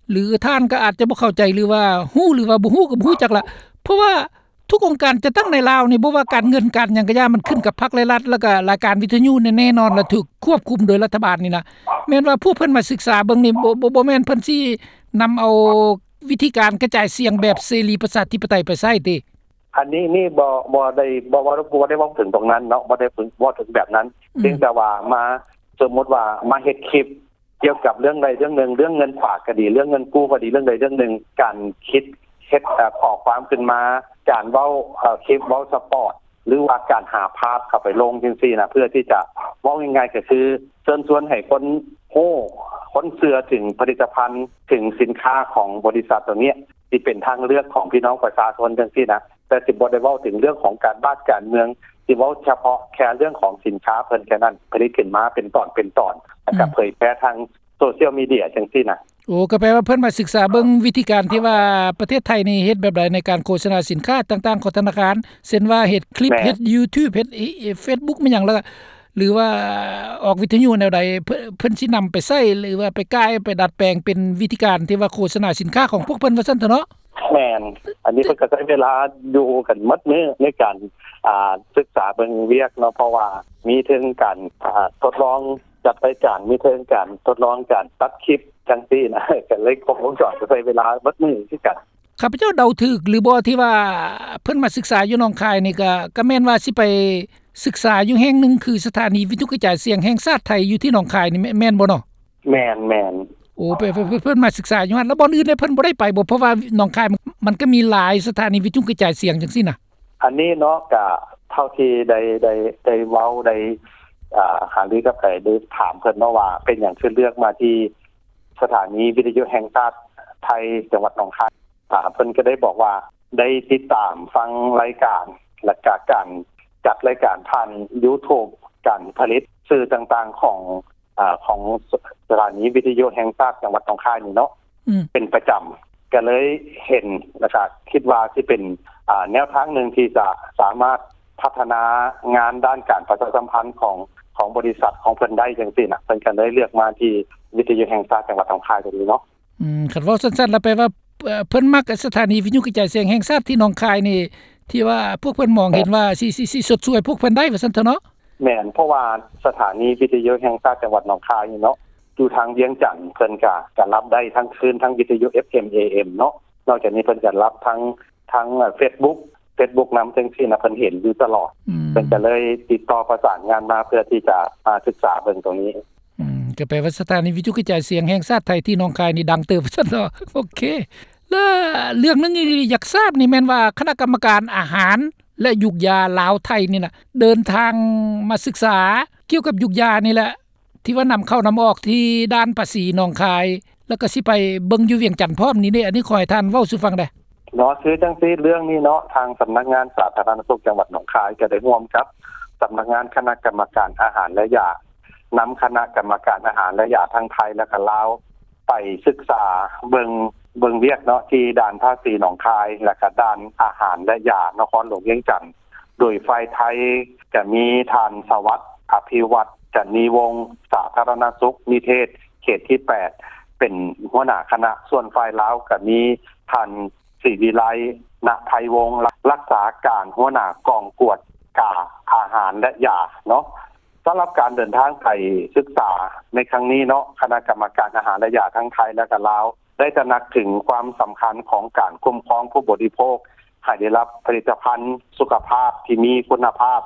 ຫຼືທ່ານກໍອາດຈະບໍ່ເຂົ້າໃຈ ຫຼືວ່າຮູ້ ຫຼືວ່າບໍ່ຮູ້ ກໍບໍ່ຮູ້ຈັກລະ ເພາະວ່າ ທຸກອົງການຈັດຕັ້ງໃນລາວນີ້ ບໍ່ວ່າການເງິນການຫຍັງກະຢ່າ ມັນຂຶ້ນກັບພັກ ແລະ ລັດ ແລ້ວກະລາຍການວິທະຍຸແນ່ໆນອນ ແລະ ຖືກຄວບຄຸມໂດຍລັດຖະບານນີ້ນະ. ແມ່ນວ່າພວກເພິ່ນມາສຶກສາເບິ່ງນີ້ ບໍ່ ບໍ່ ບໍ່ແມ່ນເພິ່ນຊິນຳເອົາວິທີການກະຈາຍສຽງແບບເສລີປະຊາທິປະໄຕໄປໃຊ້ຕິ? ອັນນີ້ນີ້ບໍ່ ບໍ່ໄດ້ ບໍ່ ບໍ່ ບໍ່ໄດ້ເວົ້າເຖິງຕົງນັ້ນເນາະ ບໍ່ໄດ້ເວົ້າເຖິງແບບນັ້ນ. ອືມ ພຽງແຕ່ວ່າມາ ສົມມຸດວ່າມາເຮັດຄລິບ ກ່ຽວກັບເລື່ອງໃດເລື່ອງໜຶ່ງ ເລື່ອງເງິນຝາກກໍດີ ເລື່ອງເງິນກູ້ກໍດີ ເລື່ອງໃດເລື່ອງໜຶ່ງ ການຄິດເຮັດ ເອີ ຂໍ້ຄວາມຂຶ້ນມາ ການເວົ້າ ເອີ ຄລິບເວົ້າສະປອດ ຫຼືວ່າການຫາພາບເຂົ້າໄປລົງຈັ່ງຊີ້ນະ ເພື່ອທີ່ຈະ ເວົ້າງ່າຍໆກໍຄືເຊີນຊວນໃຫ້ຄົນຮູ້ ຄົນເຊື່ອເຖິງຜະລິດຕະພັນ ເຖິງສິນຄ້າຂອງບໍລິສັດຕົວນີ້ ທີ່ເປັນທາງເລືອກຂອງພີ່ນ້ອງປະຊາຊົນຈັ່ງຊີ້ນະ. ແຕ່ຊິບໍ່ໄດ້ເວົ້າເຖິງເລື່ອງຂອງການບ້ານການເມືອງ ຊິເວົ້າສະເພາະແຄ່ເລື່ອງຂອງສິນຄ້າເພິ່ນແຄ່ນັ້ນ ຜະລິດຂຶ້ນມາເປັນຕອນເປັນຕອນ ແລ້ວກໍ ອືມ ເຜີຍແຜ່ທາງໂຊຊຽວມີເດຍຈັ່ງຊີ້ນະ. ໂອ້ ກໍແປວ່າເພິ່ນມາສຶກສາເບິ່ງວິທີການທີ່ວ່າປະເທດໄທນີ້ເຮັດແບບໃດໃນການໂຄສະນາສິນຄ້າຕ່າງໆຂອງທະນາຄານ ເຊັ່ນວ່າເຮັດຄລິບ ແມ່ນ ເຮັດຢູທູບ ເຮັດເຟສບຸກ ແມ່ນຫຍັງ ແລ້ວກໍ ຫຼືວ່າອອກວິທະຍຸແນວໃດ ເພິ່ນ ເພິ່ນຊິນຳໄປໃຊ້ ຫຼືວ່າໄປກ່າຍ ໄປດັດແປງເປັນວິທີການທີ່ວ່າໂຄສະນາສິນຄ້າຂອງພວກເພິ່ນວ່າຊັ້ນເຖາະເນາະ. ແມ່ນ ອັນນີ້ເພິ່ນກໍໃຊ້ເວລາຢູ່ກັນໝົດມື້ໃນການ ອ່າ ສຶກສາເບິ່ງວຽກເນາະ ເພາະວ່າມີເຖິງການ ອ່າ ທົດລອງຈັດລາຍການ ມີເຖິງການທົດລອງການຕັດຄລິບຈັ່ງຊີ້ນະ ກໍເລີຍຄົບວົງຈອນ ກໍໃຊ້ເວລາໝົດມື້ຄືກັນ. ຂ້າພະເຈົ້າເດົາຖືກຫຼືບໍ່ທີ່ວ່າເພິ່ນມາສຶກສາຢູ່ໜອງຄາຍນີ້ ກໍ ກໍແມ່ນວ່າຊິໄປສຶກສາຢູ່ແຫ່ງໜຶ່ງ ຄືສະຖານີວິທະຍຸກະຈາຍສຽງແຫ່ງຊາດໄທຢູ່ທີ່ໜອງຄາຍນີ້ ແມ່ນ ແມ່ນບໍ່ເນາະ? ແມ່ນ ແມ່ນ. ໂອ້ ເພິ່ນ ເພິ່ນ ເພິ່ນມາສຶກສາຢູ່ຫັ້ນ ແລ້ວບ່ອນອື່ນເດ ເພິ່ນບໍ່ໄດ້ໄປບໍ່? ເພາະວ່າໜອງຄາຍມັນ ມັນກໍມີຫຼາຍສະຖານີວິທະຍຸກະຈາຍສຽງຈັ່ງຊີ້ນະ. ອັນນີ້ເນາະ ກະເທົ່າທີ່ໄດ້ ໄດ້ ໄດ້ເວົ້າ ໄດ້ ອ່າ ຫາລືກັບ ໄດ້ ໄດ້ຖາມເພິ່ນເນາະວ່າ ເປັນຫຍັງຄືເລືອກມາທີ່ສະຖານີວິທະຍຸແຫ່ງຊາດໄທ ຈັງຫວັດໜອງຄາຍ. ອ່າ ເພິ່ນກໍໄດ້ບອກວ່າ ໄດ້ຕິດຕາມຟັງລາຍການ ແລ້ວກະການຈັດລາຍການຜ່ານຢູທູບ ການຜະລິດສື່ຕ່າງໆຂອງ ອ່າ ຂອງສະ ສະຖານີວິທະຍຸແຫ່ງຊາດຈັງຫວັດໜອງຄາຍນີ້ເນາະ ອືມ ເປັນປະຈຳ ກໍເລີຍເຫັນ ແລ້ວກະຄິດວ່າຊິເປັນ ອ່າ ແນວທາງໜຶ່ງທີ່ຈະສາມາດພັດທະນາງານດ້ານການປະຊາສຳພັນຂອງ ຂອງບໍລິສັດຂອງເພິ່ນໄດ້ຈັ່ງຊີ້ນະ ເພິ່ນກໍເລີຍເລືອກມາທີ່ວິທະຍຸແຫ່ງຊາດຈັງຫວັດໜອງຄາຍຕົວນີ້ເນາະ. ອືມ ຄັນເວົ້າສັ້ນໆ ແລ້ວແປວ່າ ເອີ ເພິ່ນມັກສະຖານີວິທະຍຸກະຈາຍສຽງແຫ່ງຊາດທີ່ໜອງຄາຍນີ້ ທີ່ວ່າພວກເພິ່ນມອງເຫັນວ່າຊິ ຊິ ຊິຊົດຊ່ວຍພວກເພິ່ນໄດ້ວ່າຊັ້ນເຖາະເນາະ. ແມ່ນ ເພາະວ່າສະຖານີວິທະຍຸແຫ່ງຊາດຈັງຫວັດໜອງຄາຍນີ້ເນາະ ຢູ່ທາງວຽງຈັນ ເພິ່ນກະ ກະຮັບໄດ້ທັງຄື້ນ ທັງວິທະຍຸ ເອັຟເອັມ ເອເອັມ ເນາະ. ນອກຈາກນີ້ເພິ່ນກະຮັບທັງ ທັງເຟສບຸກ ເຟສບຸກນຳຈັ່ງຊີ້ນະ ເພິ່ນເຫັນຢູ່ຕະຫຼອດ ອືມ ເພິ່ນກະເລີຍຕິດຕໍ່ປະສານງານມາ ເພື່ອທີ່ຈະມາສຶກສາເບິ່ງຕົງນີ້. ອືມ ກໍແປວ່າສະຖານີວິທະຍຸກະຈາຍສຽງແຫ່ງຊາດໄທທີ່ໜອງຄາຍນີ້ດັງເຕີບວ່າຊັ້ນເນາະ. ໂອເຄ ແລະເລື່ອງໜຶ່ງທີ່ຢາກຊາບນີ້ແມ່ນວ່າຄະນະກຳມະການອາຫານ ແລະ ຢູກຢາລາວໄທນີ້ນະ ເດີນທາງມາສຶກສາກ່ຽວກັບຢູກຢານີ້ແຫຼະ ທີ່ວ່ານຳເຂົ້ານຳອອກທີ່ດ່ານພາສີໜອງຄາຍ ແລ້ວກໍຊິໄປເບິ່ງຢູ່ວຽງຈັນພ້ອມນີ້ເດ້. ອັນນີ້ຂໍໃຫ້ທ່ານເວົ້າສູ່ຟັງແດ່. ເນາະ ຄືຈັ່ງຊີ້ ເລື່ອງນີ້ເນາະ ທາງສຳນັກງານສາທາລະນະສຸກຈັງຫວັດໜອງຄາຍ ກໍໄດ້ຮ່ວມກັບສຳນັກງານຄະນະກຳມະການອາຫານ ແລະ ຢາ ນຳຄະນະກຳມະການອາຫານ ແລະ ຢາທັງໄທ ແລະ ກະລາວ ໄປສຶກສາເບິ່ງ ເບິ່ງວຽກເນາະ ທີ່ດ່ານພາສີໜອງຄາຍ ແລະກະດ່ານອາຫານ ແລະຢາ ນະຄອນຫຼວງວຽງຈັນ. ໂດຍຝ່າຍໄທກະມີທ່ານ ສະຫວັດ ອະພິວັດ ຈັນນີວົງ ສາທາລະນະສຸກນິເທດ ເຂດທີແປດ ເປັນຫົວໜ້າຄະນະ. ສ່ວນຝ່າຍລາວກະມີທ່ານ ສີວິໄລ ນະໄພວົງ ລັກສາການຫົວໜ້າກອງກວດກາອາຫານ ແລະຢາເນາະ. ສຳລັບການເດີນທາງໄປສຶກສາໃນຄັ້ງນີ້ເນາະ ຄະນະກຳມະການອາຫານ ແລະຢາທັງໄທ ແລະກະລາວ ໄດ້ຕະໜັກເຖິງຄວາມສຳຄັນຂອງການຄຸ້ມຄອງຜູ້ບໍລິໂພກ ໃຫ້ໄດ້ຮັບຜະລິດຕະພັນສຸຂະພາບທີ່ມີຄຸນນະພາບ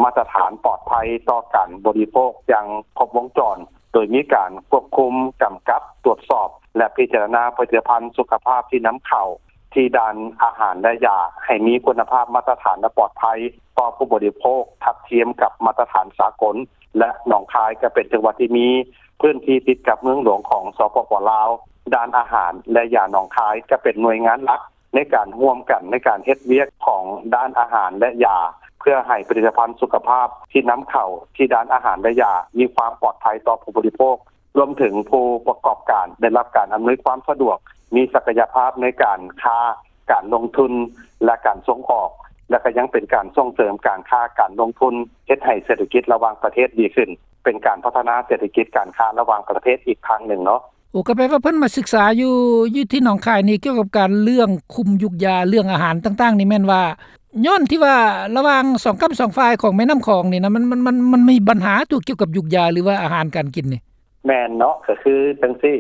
ມາດຕະຖານປອດໄພຕໍ່ການບໍລິໂພກຢ່າງຄົບວົງຈອນ, ໂດຍມີການຄວບຄຸມ, ກຳກັບ, ຕວດສອບ ແລະ ພິຈາລະນາຜະລິດຕະພັນສຸຂະພາບທີ່ນຳເຂົ້າທີ່ດ່ານອາຫານ ແລະ ຢາ ໃຫ້ມີຄຸນນະພາບມາດຕະຖານ ແລະ ປອດໄພຕໍ່ຜູ້ບໍລິໂພກ ທັດທຽມກັບມາດຕະຖານສາກົນ ແລະ ໜອງຄາຍກໍເປັນຈັງຫວັດທີ່ມີພື້ນທີ່ຕິດກັບເມືອງຫຼວງຂອງ ສປປ ລາວ. ດ່ານອາຫານ ແລະ ຢາໜອງຄາຍກໍເປັນໜ່ວຍງານຫຼັກ ໃນການຮ່ວມກັນໃນການເຮັດວຽກຂອງດ່ານອາຫານ ແລະ ຢາ ເພື່ອໃຫ້ຜະລິດຕະພັນສຸຂະພາບທີ່ນຳເຂົ້າທີ່ດ່ານອາຫານ ແລະ ຢາ ມີຄວາມປອດໄພຕໍ່ຜູ້ບໍລິໂພກ, ລວມເຖິງຜູ້ປະກອບການໄດ້ຮັບການອຳນວຍຄວາມສະດວກ, ມີສັກກະຍະພາບໃນການຄ້າ, ການລົງທຶນ ແລະ ການສົ່ງອອກ, ແລະ ກໍຍັງເປັນການສົ່ງເສີມການຄ້າ, ການລົງທຶນ, ເຮັດໃຫ້ເສດຖະກິດລະຫວ່າງປະເທດດີຂຶ້ນ, ເປັນການພັດທະນາເສດຖະກິດການຄ້າລະຫວ່າງປະເທດອີກທາງໜຶ່ງເນາະ. ໂອ້ ກໍແປວ່າເພິ່ນມາສຶກສາຢູ່ ຢູ່ທີ່ໜອງຄາຍນີ້ ກ່ຽວກັບການເລື່ອງຄຸມຢູກຢາ ເລື່ອງອາຫານຕ່າງໆນີ້ ແມ່ນວ່າຍ້ອນທີ່ວ່າລະຫວ່າງສອງກ້ຳສອງຝ່າຍຂອງແມ່ນ້ຳຂອງນີ້ນະ ມັນ ມັນ ມັນ ມັນມີບັນຫາຕົວກ່ຽວກັບຢູກຢາ ຫຼືວ່າອາຫານການກິນນີ້? ແມ່ນເນາະ ກໍຄືຈັ່ງຊີ້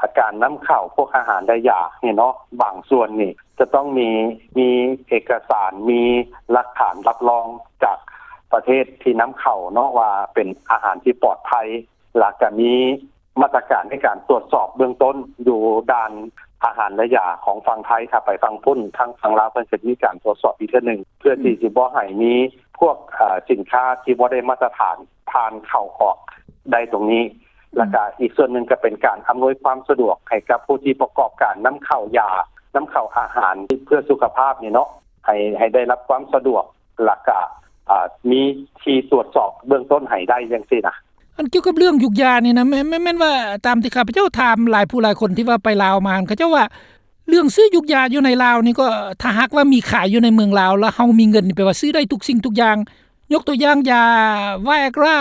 ອາ ການນຳເຂົ້າພວກອາຫານ ແລະ ຢານີ້ເນາະ ບາງສ່ວນນີ້ຈະຕ້ອງມີ ມີເອກະສານ ມີຫຼັກຖານຮັບຮອງຈາກປະເທດທີ່ນຳເຂົ້າເນາະ ວ່າເປັນອາຫານທີ່ປອດໄພ ແລ້ວກໍມີ ມາດຕະການໃນການຕວດສອບເບື້ອງຕົ້ນຢູ່ດ່ານອາຫານ ແລະ ຢາຂອງຝັ່ງໄທ. ຖ້າໄປຝັ່ງພຸ້ນ ທາງຝັ່ງລາວເພິ່ນຈະມີການຕວດສອບອີກເທື່ອໜຶ່ງ ເພື່ອທີ່ ອືມ ຊິບໍ່ໃຫ້ມີພວກ ເອີ ສິນຄ້າທີ່ບໍ່ໄດ້ມາດຕະຖານຜ່ານເຂົ້າອອກໄດ້ຕົງນີ້. ອືມ ແລ້ວກະອີກສ່ວນໜຶ່ງກໍເປັນການອຳນວຍຄວາມສະດວກໃຫ້ກັບຜູ້ທີ່ປະກອບການນຳເຂົ້າຢາ ນຳເຂົ້າອາຫານເພື່ອສຸຂະພາບນີ້ເນາະ ໃຫ້ ໃຫ້ໄດ້ຮັບຄວາມສະດວກ ແລ້ວກະ ອາ ມີທີ່ຕວດສອບເບື້ອງຕົ້ນໃຫ້ໄດ້ຈັ່ງຊີ້ນະ. ອັນກ່ຽວກັບເລື່ອງຢູກຢານີ້ນະ ແມ່ນ ແມ່ນ ແມ່ນວ່າຕາມທີ່ຂ້າພະເຈົ້າຖາມຫຼາຍຜູ້ຫຼາຍຄົນທີ່ວ່າໄປລາວມາຫັ້ນ ເຂົາເຈົ້າວ່າເລື່ອງຊື້ຢູກຢາຢູ່ໃນລາວນີ້ກໍ ຖ້າຫາກວ່າມີຂາຍຢູ່ໃນເມືອງລາວ ແລ້ວເຮົາມີເງິນນີ້ ແປວ່າຊື້ໄດ້ທຸກສິ່ງທຸກຢ່າງ. ຍົກຕົວຢ່າງຢາໄວອາກຣາ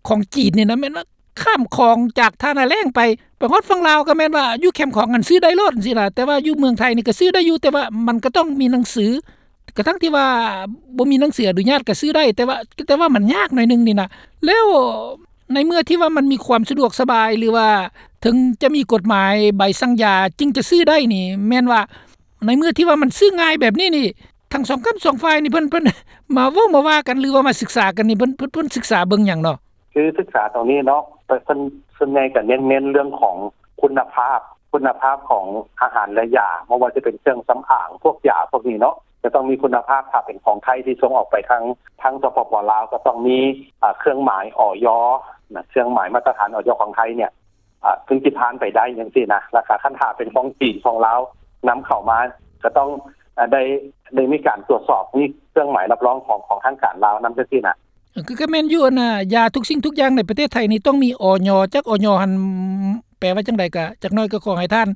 ຂອງຈີນນີ້ນະ ແມ່ນວ່າຂ້າມຂອງຈາກທ່ານາແລ້ງໄປ ໄປຮອດຝັ່ງລາວກໍແມ່ນວ່າຢູ່ແຄມຂອງຫັ້ນຊື້ໄດ້ໂລດຈັ່ງຊີ້ນະ. ແຕ່ວ່າຢູ່ເມືອງໄທນີ້ກໍຊື້ໄດ້ຢູ່ ແຕ່ວ່າມັນກໍຕ້ອງມີໜັງສື ກະທັ່ງທີ່ວ່າບໍ່ມີໜັງສືອະນຸຍາດກໍຊື້ໄດ້ ແຕ່ວ່າ ແຕ່ວ່າມັນຍາກໜ້ອຍໜຶ່ງນີ້ນະ. ແລ້ວໃນເມື່ອທີ່ວ່າມັນມີຄວາມສະດວກສະບາຍ ຫຼືວ່າເຖິງຈະມີກົດໝາຍໃບສັ່ງຢາຈຶ່ງຈະຊື້ໄດ້ນີ້ ແມ່ນວ່າໃນເມື່ອທີ່ວ່າມັນຊື້ງ່າຍແບບນີ້ນີ້ ທັງສອງກ້ຳສອງຝ່າຍນີ້ ເພິ່ນ ເພິ່ນມາເວົ້າມາວ່າກັນ ຫຼືວ່າມາສຶກສາກັນນີ້ ເພິ່ນ ເພິ່ນ ເພິ່ນສຶກສາເບິ່ງຫຍັງເນາະ? ຄືສຶກສາຕົງນີ້ເນາະ ເພິ່ນ ເພິ່ນສ່ວນໃຫຍ່ກໍເນັ້ນ ເນັ້ນເລື່ອງຂອງຄຸນນະພາບ ຄຸນນະພາບຂອງອາຫານ ແລະ ຢາ ບໍ່ວ່າຈະເປັນເຄື່ອງສຳອາງ ພວກຢາພວກນີ້ເນາະ ຈະຕ້ອງມີຄຸນນະພາບ. ຖ້າເປັນຂອງໄທທີ່ສົ່ງອອກໄປທາງ ທາງ ສປປ ລາວ ກໍຕ້ອງມີ ອາ ເຄື່ອງໝາຍ ອຢ ນະ ເຄື່ອງໝາຍມາດຕະຖານ ອຢ ຂອງໄທເນຍ ອາ ເຖິງຊິຜ່ານໄປໄດ້ຈັ່ງຊີ້ນະ. ແລ້ວກໍຄັນຖ້າເປັນຂອງຈີນ ຂອງລາວ ນຳເຂົ້າມາ ກໍຕ້ອງ ອາ ໄດ້ ໄດ້ມີການຕວດສອບ ມີເຄື່ອງໝາຍຮັບຮອງຂອງ ຂອງທາງການລາວນຳຈັ່ງຊີ້ນະ. ເອີ ກໍ ກໍແມ່ນຢູ່ ອັນນ່າ ຢາທຸກສິ່ງທຸກຢ່າງໃນປະເທດໄທນີ້ຕ້ອງມີ ອຢ. ຈັກ ອຢ ຫັ້ນແປວ່າຈັ່ງໃດ ກະຈັກໜ້ອຍກໍຂໍໃຫ້ທ່ານ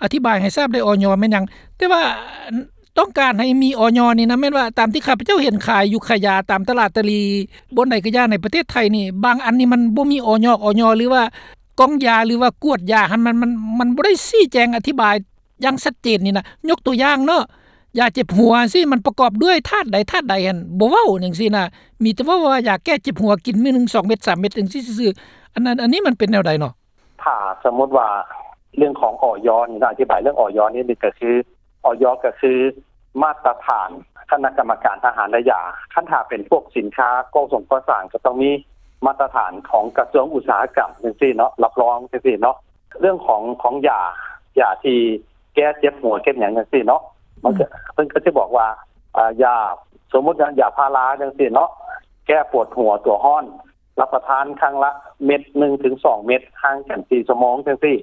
ອະທິບາຍໃຫ້ຊາບໄດ້ ອຢ ແມ່ນຫຍັງ? ແຕ່ວ່າຕ້ອງການໃຫ້ມີ ອຢ ນີ້ນະ ແມ່ນວ່າຕາມທີ່ຂ້າພະເຈົ້າເຫັນຂາຍຢູ່ຂາຍຢາຕາມຕະຫຼາດຕະຫຼີ່ ບ່ອນໃດກໍຢ່າໃນປະເທດໄທນີ້ ບາງອັນນີ້ມັນບໍ່ມີ ອຢ ອຢ ຫຼືວ່າກ່ອງຢາ ຫຼືວ່າກວດຢາຫັ້ນ ມັນ ມັນ ມັນບໍ່ໄດ້ຊີ້ແຈງອະທິບາຍ ຢ່າງຊັດເຈນນີ້ນະ. ຍົກຕົວຢ່າງເນາະ ຢາເຈັບຫົວຊີ້ ມັນປະກອບດ້ວຍທາດໃດທາດໃດຫັ້ນ ບໍ່ເວົ້າຈັ່ງຊີ້ນະ ມີແຕ່ເວົ້າວ່າຢາແກ້ເຈັບຫົວ ກິນມື້ໜຶ່ງສອງເມັດສາມເມັດຈັ່ງຊີ້ຊື່ໆ. ອັນ ອັນ ອັນນີ້ມັນເປັນແນວໃດເນາະ? ຖ້າສົມມຸດວ່າເລື່ອງຂອງ ອຢ ນີ້ນະ ອະທິບາຍເລື່ອງ ອຢ ນີ້ ກໍຄື ອຢ ກໍຄືມາດຕະຖານຄະນະກຳມະການອາຫານ ແລະ ຢາ. ຄັນຖ້າເປັນພວກສິນຄ້າກໍ່ສົງກໍ່ສ້າງ ກໍຕ້ອງມີມາດຕະຖານຂອງກະຊວງອຸດສາຫະກຳຈັ່ງຊີ້ເນາະ ຮັບຮອງຈັ່ງຊີ້ເນາະ. ເລື່ອງຂອງ ຂອງຢາ ຢາທີ່ແກ້ເຈັບຫົວເຈັບຫຍັງຈັ່ງຊີ້ເນາະ ມັນກໍ ອືມ ເພິ່ນກໍຈະບອກວ່າ ອາ ຢາ ສົມມຸດວ່າຢາພາລາຈັ່ງຊີ້ເນາະ ແກ້ປວດຫົວຕົວຮ້ອນ ຮັບປະທານຄັ້ງລະເມັດໜຶ່ງເຖິງສອງເມັດ ຫ່າງກັນສີ່ຊົ່ວໂມງຈັ່ງຊີ້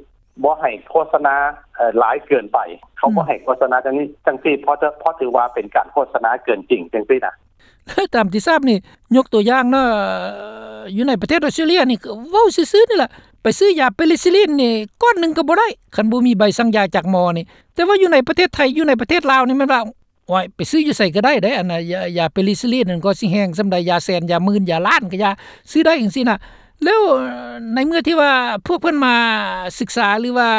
ບໍ່ໃຫ້ໂຄສະນາ ເອີ ຫຼາຍເກີນໄປ ເຂົາ ອືມ ບໍ່ໃຫ້ໂຄສະນາຈັ່ງນີ້ຈັ່ງຊີ້ ເພາະ ເພາະຖືວ່າເປັນການໂຄສະນາເກີນຈິງຈັ່ງຊີ້ນະ. ຕາມທີ່ຊາບນີ້ ຍົກຕົວຢ່າງເນາະ ຢູ່ໃນປະເທດອອສເຕຣເລຍນີ້ ເວົ້າຊື່ໆນີ້ລະ ໄປຊື້ຢາເປນິຊິລິນນີ້ ກ້ອນໜຶ່ງກໍບໍ່ໄດ້ ຄັນບໍ່ມີໃບສັ່ງຢາຈາກໝໍນີ້. ແຕ່ວ່າຢູ່ໃນປະເທດໄທ ຢູ່ໃນປະເທດລາວນີ້ ແມ່ນວ່າ ໂອ້ຍ ໄປຊື້ຢູ່ໃສກໍໄດ້ເດ້ ອັນນ່າ ຢາ ຢາເປນິຊິລິນນັ້ນ ກໍຊິແຮງສ່ຳໃດ ຢາແສນ ຢາໝື່ນ ຢາລ້ານ ກໍຢາ ຊື້ໄດ້ຈັ່ງຊີ້ນະ. ແລ້ວໃນເມື່ອທີ່ວ່າພວກເພິ່ນມາສຶກສາ ຫຼືວ່າ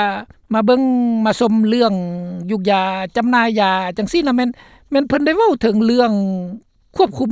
ມາເບິ່ງມາຊົມເລື່ອງຢູກຢາ ຈຳໜ່າຍຢາຈັ່ງຊີ້ນະ ແມ່ນ ແມ່ນເພິ່ນໄດ້ເວົ້າເຖິງເລື່ອງຄວບຄຸມ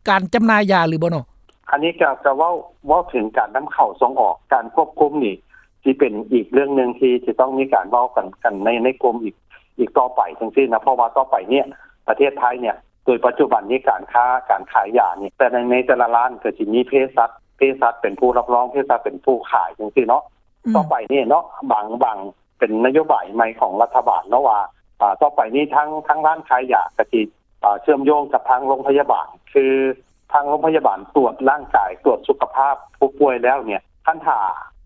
ການຈຳໜ່າຍຢາຫຼືບໍ່ເນາະ? ອັນນີ້ກໍ ກໍເວົ້າ ເວົ້າເຖິງການນຳເຂົ້າສົ່ງອອກ ການຄວບຄຸມນີ້ ຊິເປັນອີກເລື່ອງໜຶ່ງທີ່ຈະຕ້ອງມີການເວົ້າກັນ ກັນໃນ ໃນກົມອີກ ອີກຕໍ່ໄປຈັ່ງຊີ້ນະ ເພາະວ່າຕໍ່ໄປເນີ້ຍ ປະເທດໄທເນີ້ຍ ໂດຍປັດຈຸບັນນີ້ການຄ້າ ການຂາຍຢານີ້ ແຕ່ໃນ ໃນແຕ່ລະຮ້ານກໍຊິມີເພສັດ ເພສັດເປັນຜູ້ຮັບຮອງ ເພສັດເປັນຜູ້ຂາຍຈັ່ງຊີ້ເນາະ. ອືມ ຕໍ່ໄປນີ້ເນາະ ບາງ ບາງ ເປັນນະໂຍບາຍໃໝ່ຂອງລັດຖະບານເນາະວ່າ ອ່າ ຕໍ່ໄປນີ້ທາງ ທາງຮ້ານຂາຍຢາກໍຊິ ອ່າ ເຊື່ອມໂຍງກັບທາງໂຮງພະຍາບານ ຄືທາງໂຮງພະຍາບານຕວດຮ່າງກາຍ ຕວດສຸຂະພາບຜູ້ປ່ວຍແລ້ວເນີ້ຍ ຄັນຖ້າ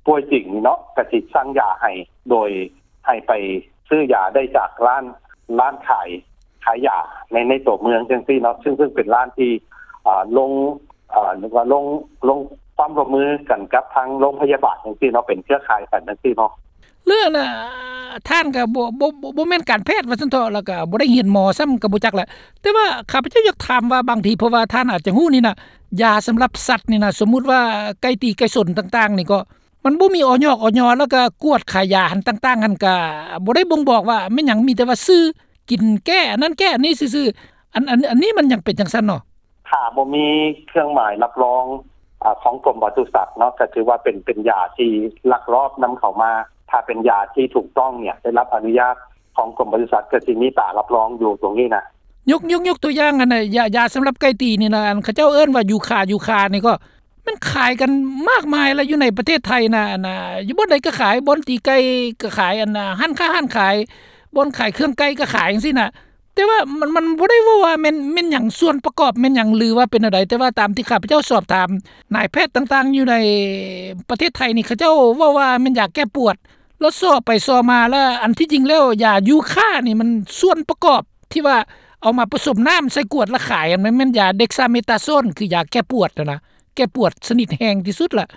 ປ່ວຍຈິງເນາະ ກໍຊິສັ່ງຢາໃຫ້ ໂດຍໃຫ້ໄປຊື້ຢາໄດ້ຈາກຮ້ານ ຮ້ານຂາຍ ຂາຍຢາໃນ ໃນຕົວເມືອງຈັ່ງຊີ້ເນາະ ຊຶ່ງ ຊຶ່ງເປັນຮ້ານທີ່ ອ່າ ລົງ ເອີ ເອີ້ນວ່າລົງ ລົງຄວາມຮ່ວມມືກັນກັບທາງໂຮງພະຍາບານຈັ່ງຊີ້ເນາະ ເປັນເຄືອຂ່າຍກັນຈັ່ງຊີ້ເນາະ. ເລື່ອງນະ ທ່ານກໍບໍ່ ບໍ່ ບໍ່ ບໍ່ແມ່ນການແພດວ່າຊັ້ນເຖາະ ແລ້ວກໍບໍ່ໄດ້ຮຽນໝໍຊ້ຳກໍບໍ່ຈັກແຫຼະ ແຕ່ວ່າຂ້າພະເຈົ້າຢາກຖາມວ່າບາງທີ ເພາະວ່າທ່ານອາດຈະຮູ້ນີ້ນະ ຢາສຳລັບສັດນີ້ນະ ສົມມຸດວ່າໄກ່ຕີໄກ່ຊົນຕ່າງໆນີ້ກໍ ມັນບໍ່ມີ ອຢ ອຢ ແລ້ວກໍກວດຂາຍຢາຫັ້ນຕ່າງໆຫັ້ນ ກໍບໍ່ໄດ້ບົ່ງບອກວ່າແມ່ນຫຍັງ ມີແຕ່ວ່າຊື່ ກິນແກ້ອັນນັ້ນແກ້ອັນນີ້ຊື່ໆ ອັນ ອັນ ອັນນີ້ມັນຍັງເປັນຈັ່ງຊັ້ນເນາະ? ຖ້າບໍ່ມີເຄື່ອງໝາຍຮັບຮອງ ອາ ຂອງກົມປະສຸສັດເນາະ ກໍຖືວ່າເປັນ ເປັນຢາທີ່ລັກລອບນຳເຂົ້າມາ. ຖ້າເປັນຢາທີ່ຖືກຕ້ອງເນີ້ຍ ໄດ້ຮັບອະນຸຍາດຂອງກົມປະສຸສັດ ກໍຊິມີຕາຮັບຮອງຢູ່ຕົງນີ້ນະ. ຍົກ ຍົກ ຍົກຕົວຢ່າງ ອັນນ່າ ຢາ ຢາສຳລັບໄກ່ຕີນີ້ນະ ອັນເຂົາເຈົ້າເອີ້ນວ່າຢູຄາ ຢູຄານີ້ກໍ ມັນຂາຍກັນມາກມາຍລະ ຢູ່ໃນປະເທດໄທນະ ອັນນ່າ ຢູ່ບ່ອນໃດກໍຂາຍ ບ່ອນຕີໄກ່ກໍຂາຍ ອັນນ່າ ຮ້ານຄ້າຮ້ານຂາຍ ບ່ອນຂາຍເຄື່ອງໄກ່ກໍຂາຍຈັ່ງຊີ້ນະ. ແຕ່ວ່າມັນ ມັນບໍ່ໄດ້ເວົ້າວ່າແມ່ນ ແມ່ນຫຍັງ ສ່ວນປະກອບແມ່ນຫຍັງ ຫຼືວ່າເປັນແນວໃດ ແຕ່ວ່າຕາມທີ່ຂ້າພະເຈົ້າສອບຖາມນາຍແພດຕ່າງໆຢູ່ໃນປະເທດໄທນີ້ ເຂົາເຈົ້າເວົ້າວ່າແມ່ນຢາແກ້ປວດ ແລ້ວຊໍໄປຊໍມາ ແລ້ວອັນທີ່ຈິງແລ້ວຢາຢູຄານີ້ ມັນສ່ວນປະກອບທີ່ວ່າເອົາມາປະສົມນ້ຳໃສ່ກວດແລ້ວຂາຍ ມັນແມ່ນຢາເດັກຊາເມຕາໂຊນ ຄືຢາແກ້ປວດຫັ້ນນະ ແກ້ປວດຊະນິດແຮງທີ່ສຸດລະ.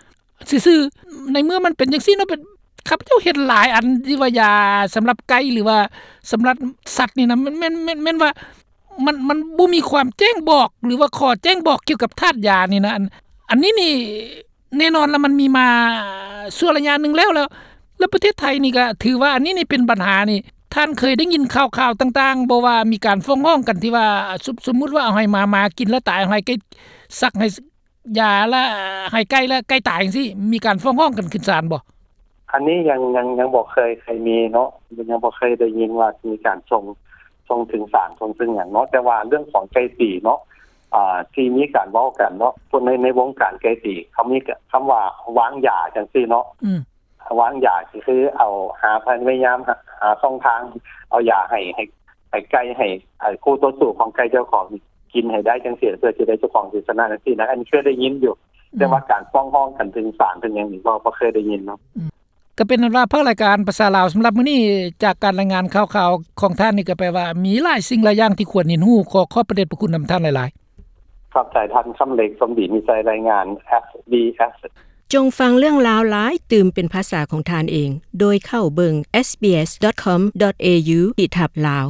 ຊື່ໆ ໃນເມື່ອມັນເປັນຈັ່ງຊີ້ເນາະ ເປັນ ຂ້າພະເຈົ້າເຫັນຫຼາຍອັນທີ່ວ່າຢາສຳລັບໄກ່ ຫຼືວ່າສຳລັບສັດນີ້ນະ ແມ່ນ ແມ່ນ ແມ່ນ ແມ່ນວ່າມັນ ມັນບໍ່ມີຄວາມແຈ້ງບອກ ຫຼືວ່າຂໍ້ແຈ້ງບອກກ່ຽວກັບທາດຢານີ້ນະ. ອັນ ອັນນີ້ນີ້ແນ່ນອນລະ ມັນມີມາຊົ່ວໄລຍະໜຶ່ງແລ້ວ ແລ້ວ ແລ້ວປະເທດໄທນີ້ກະຖືວ່າອັນນີ້ນີ້ເປັນບັນຫານີ້ ທ່ານເຄີຍໄດ້ຍິນຂ່າວໆຕ່າງໆບໍ່ ວ່າມີການຟ້ອງຮ້ອງກັນທີ່ວ່າ ສົມ ສົມມຸດວ່າເອົາໃຫ້ໝາ ໝາກິນແລ້ວຕາຍ ເອົາໃຫ້ໄກ່ສັກ ໃຫ້ ຢາລະໃຫ້ໄກ່ ແລະ ໄກ່ຕາຍຈັ່ງຊີ້ ມີການຟ້ອງຮ້ອງກັນຂຶ້ນສານບໍ່? ອັນນີ້ຍັງ ຍັງ ຍັງບໍ່ເຄີຍ ເຄີຍມີເນາະ ຍັງບໍ່ເຄີຍໄດ້ຍິນວ່າມີການສົ່ງ ສົ່ງເຖິງສານ ສົ່ງເຖິງຫຍັງເນາະ. ແຕ່ວ່າເລື່ອງຂອງໄກ່ຕີເນາະ ອ່າ ທີ່ມີການເວົ້າກັນເນາະ ພວກໃນ ໃນວົງການໄກ່ຕີ ເຂົາມີຄຳວ່າວາງຢາຈັ່ງຊີ້ເນາະ. ອືມ ວາງຢາ ກໍຄືເອົາ ຫາ ພະຍາຍາມຫາ ຫາຊ່ອງທາງ ເອົາຢາໃຫ້ ໃຫ້ ໃຫ້ໄກ່ ໃຫ້ ໃຫ້ຄູ່ຕໍ່ສູ້ຂອງໄກ່ເຈົ້າຂອງກິນໃຫ້ໄດ້ຈັ່ງຊີ້ ເພື່ອຊິໄດ້ເຈົ້າຂອງຊິຊະນະຈັ່ງຊີ້ນະ. ອັນນີ້ເຄີຍໄດ້ຍິນຢູ່ ອືມ ແຕ່ວ່າການຟ້ອງຮ້ອງກັນເຖິງສານເຖິງຫຍັງນີ້ ບໍ່ ບໍ່ເຄີຍໄດ້ຍິນເນາະ. ອືມ ກໍເປັນອັນວ່າພາກລາຍການພາສາລາວສຳລັບມື້ນີ້ ຈາກການລາຍງານຂ່າວໆຂອງທ່ານນີ້ ກໍແປວ່າມີຫຼາຍສິ່ງຫຼາຍຢ່າງທີ່ຄວນຮຽນຮູ້. ຂໍຂອບພະເດດພະຄຸນນຳທ່ານຫຼາຍໆ. ຂອບໃຈທ່ານຄຳເລັກ ສົມດີມີໄຊ ລາຍງານ ເອສບີເອສ. ຈົ່ງຟັງເລື່ອງລາວຫຼາຍຕື່ມເປັນພາສາຂອງທ່ານເອງ ໂດຍເຂົ້າເບິ່ງ ເອສບີເອສດອດຄອມດອດເອຢູ ຂີດທັບລາວ.